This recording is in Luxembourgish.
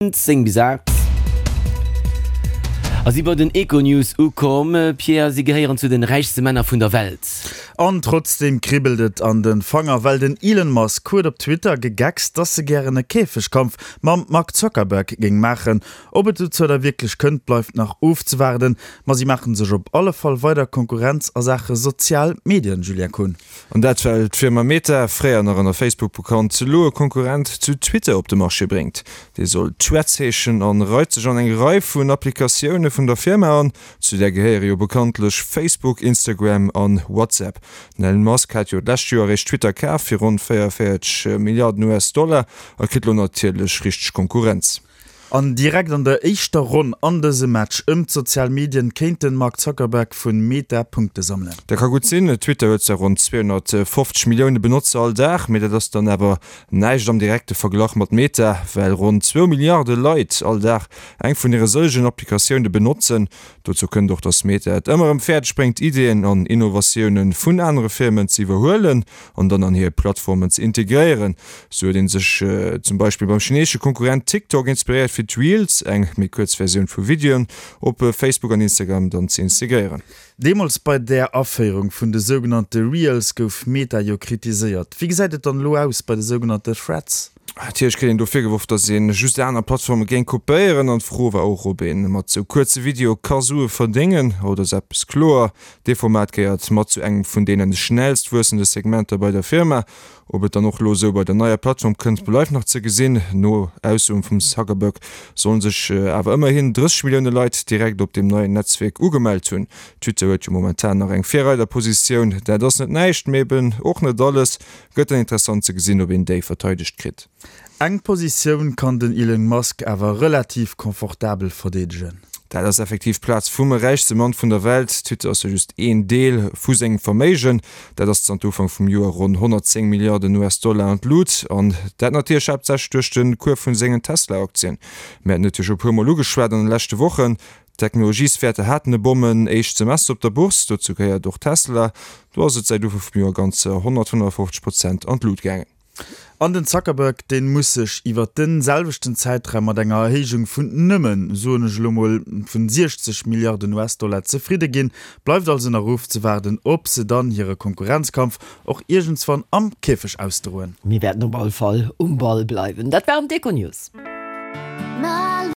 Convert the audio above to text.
10 bis 8 a si bei den Econews ukomm. Pierre, si gehéieren zu den räichste Männer vun der Welt. An trotzdeem kribbelt et an den Fanger, well den Elon Musk huet op Twitter gegeckst, dass e gären e Käfegkampf mam Mark Zuckerberg géing maachen. Ob et dozou da wierklech kënnt, bleift nach ofzewaarden, ma si maachen sech op alle Fall weider Konkurrenz a Saache sozial Medien, Julien Kohn. An dat well d'Firma Meta, fréier nach ënner Facebook bekannt, elo e Konkurrent zu Twitter op de Marché bréngt. Dee soll Threads heeschen an reit sech an eng Rei vun Applikatioune vun der Firma an. Zu där gehéiere jo bekanntlech Facebook, Instagram an WhatsApp. Den Elon Musk hat jo d'lescht Joer eréischt Twitter kaf fir ronn 44 Milliarden US-Dollar a kritt elo natierlech richteg Konkurrenz. An direkt an der éischter Ronn an dësem Match ëm d'sozial Medien kéint den Mark Zuckerberg vun Meta Punkte sammelen. Dat ka gutt sinn. Twitter huet zwar ronn 250 Millioune Benotzer all Dag, mee dat ass dann awer näischt am direkte Verglach mat Meta, well ronn zwou Milliarde Leit all Dag eng vun hire sëllegen Applikatioune benotzen. Dozou kënnt och, datt Meta et ëmmer erëm fäerdeg bréngt, Ideeën an Innovatioune vun anere Firmen ze iwwerhuelen an dann an hir Plattformen ze integréieren. Sou huet ee sech zum Beispill beim chineesesche Konkurrent TikTok inspiréiert fir d'Reels, eng méi kuerz Versioun vu Videoen, op Facebook an Instagram dann ze integréieren. Deemools bei der Aféierung vun de sougenannte Reels gouf Meta jo kritiséiert. Wéi gesäit et dann elo aus bei de sougenannte Threads? Natierlech kritt een do virgeworf, datt ee just aner Plattforme géing kopéieren an d'Fro war och, ob ee mat sou kuerze Videoe ka Sue verdéngen. Haut ass eppes kloer, Dee Format gehéiert mat zu engem vun deene schnellst wuessende Segmenter bei der Firma. Ob et dann och elo esou bei der neier Plattform kënnt, bleift nach ze gesinn. No Aussoen vum Zuckerberg sollen sech awer ëmmerhin 30 Millioune Leit direkt op deem neien Netzwierk ugemellt hunn. Twitter huet jo momentan nach eng Virreiderpositioun. Dat ass net näischt, mee eben och net alles. Gëtt dann interessant ze gesinn, ob een déi verteidegt kritt. Eng Positioun kann den Elon Musk awer relativ confortabel verdeedegen. Dat ass effektiv d'Plaz vum räichste Mann vun der Welt. Twitter ass jo just een Deel vu sengem Verméigen. Dat ass zanter Ufank vum Joer ronn 110 Milliarden US-Dollar an d'Lut. An dat natierlech haaptsächlech duerch de Cours vun sengen Tesla-Aktien. Mir haten et jo scho e puer Mol ugeschwat an de leschte Wochen. D'Technologieswäerter haten e Bommen éischt Semester op der Bourse. Dozou gehéiert och Tesla. Do ass et säit Ufank vum Joer ganzer 155 Prozent an d'Lut gaangen. An den Zuckerberg, deen muss sech iwwert den selwechten Zäitraum mat enger Erhéijung vun nëmmen, soen ech elo mol, vun 60 Milliarden US-Dollar zefridde ginn. Bleift also nach ofzewaarden, ob se dann hire Konkurrenzkampf och iergendswann am Käfeg ausdroen. Mir wäerten op all Fall um Ball bleiwen. Dat waren d'Econews.